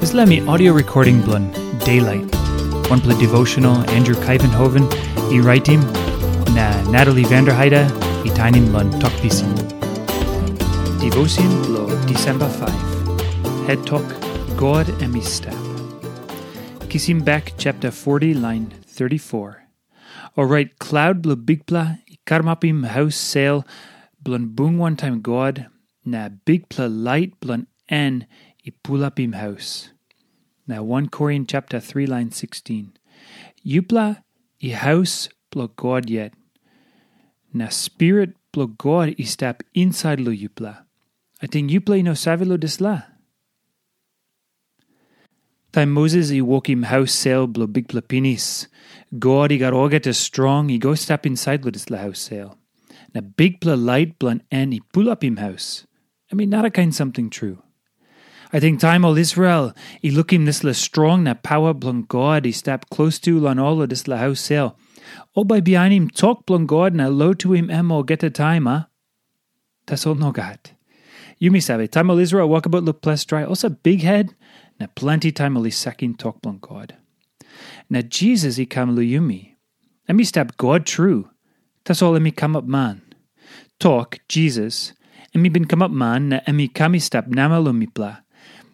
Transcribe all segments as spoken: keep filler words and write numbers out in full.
Dispela mi audio recording bilong Daylight, wanpela devotional Andrew Kaivenhoven i raitim, na Natalie Vanderheide i tainim long tok pisin. Devotion bilong Disemba five. Het tok, God em i stap. Kisim bek chapter forty, line thirty-four. Orait klaut bilong Bikpela i karamapim haus sel bilong bung wantaim God, na bikpela lait bilong en i pulapim haus. Na one Korin chapter three, line sixteen. Yupela i haus bilong God yet, na Spirit bilong God i stap insait long yupela. Ating yupela i no save long dispela? Taim Moses i wokim haus sel bilong Bikpela pinis, God i gat olgeta strong i go stap insait long dispela haus sel. Na bikpela lait bilong en i pulapim haus. Em i narakain samting tru. Ating taim ol Israel i lukim dispela strong na pawa bilong God i stap klostu long ol long dispela haus sel, ol bai bihainim tok bilong God na lotuim em olgeta taim, a? Tasol nogat. Yumi save, taim ol Israel wokabaut long ples drai, olsem bikhet, na planti taim ol i sakim tok bilong God. Na Jisas i kam long yumi. Em i stap God tru, tasol em i kamap man. Tok, Jisas, em i bin kamap man na em i kam i stap namel long mipela.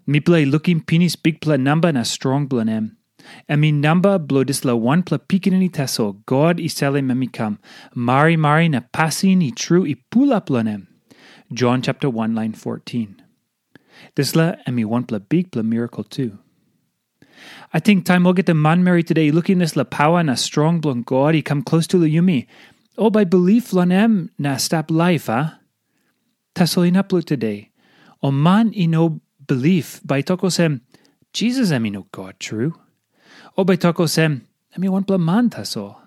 Mipela i lukim pinis bikpela namba na strong bilong em. Em i namba bilong dispela wanpela pikinini tasol God i salim em i kam. Marimari na pasin i tru i pulap long em. Jon chapter one, lain fourteen. Dispela em i wanpela bikpela mirakel tu. Ating taim olgeta manmeri tude i lukim dispela pawa na strong bilong God i kam klostu long yumi, ol bai bilip long em na stap laip, a? Tasol inap long tude, ol man i no bilip bai tok olsem, "Jisas em i no God tru." Ol bai tok olsem, "Em i wanpela man tasol."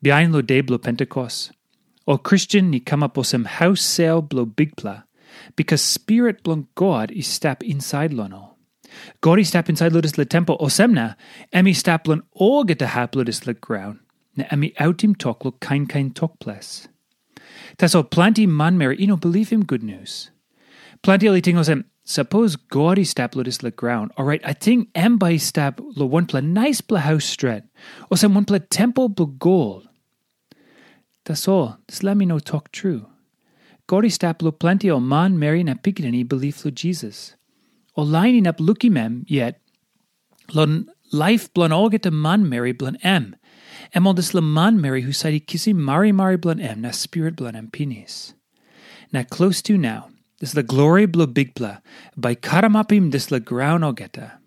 Bihain long de bilong Pentekos, ol Kristen i kamap olsem haus sel bilong Bikpela, bikas Spirit bilong God i stap insait long ol. God i stap insait long dispela tempel, olsem na em i stap long olgeta hap long dispela graun, na em i autim tok long kain kain tok ples. Tasol planti manmeri i no bilipim gutnius. Planti ol i ting olsem, sapos God i stap long dispela graun, orait ating em bai i stap long wanpela naispela haus stret, olsem wanpela tempel bilong gol. Tasol dispela em i no tok tru. God i stap long planti ol manmeri na pikinini i bilip long Jisas. Ol lain inap lukim em yet, long laip bilong olgeta manmeri bilong em, em ol dispela manmeri husat i kisim marimari bilong em na Spirit bilong em pinis. Na klostu nau, dispela glori bilong Bikpela bai karamapim dispela graun olgeta.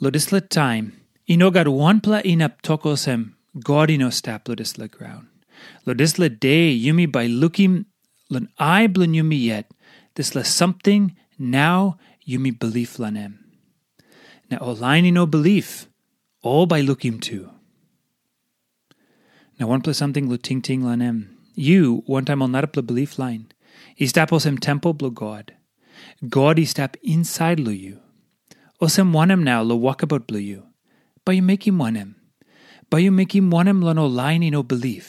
Long dispela taim, i no gat wanpela inap tok olsem, God i no stap long dispela graun. Long dispela de yumi bai lukim long ai bilong yumi yet, dispela samting nau yumi bilip long em. Na ol lain i no bilip, ol bai lukim tu. Na wanpela samting long tingting long em. Yu, wantaim ol narapela bilip lain, i stap olsem tempel bilong God. God i stap insait long yu. Olsem wanem nau long wokabaut bilong yu? Bai yu mekim wanem? Bai yu mekim wanem long ol lain i no bilip?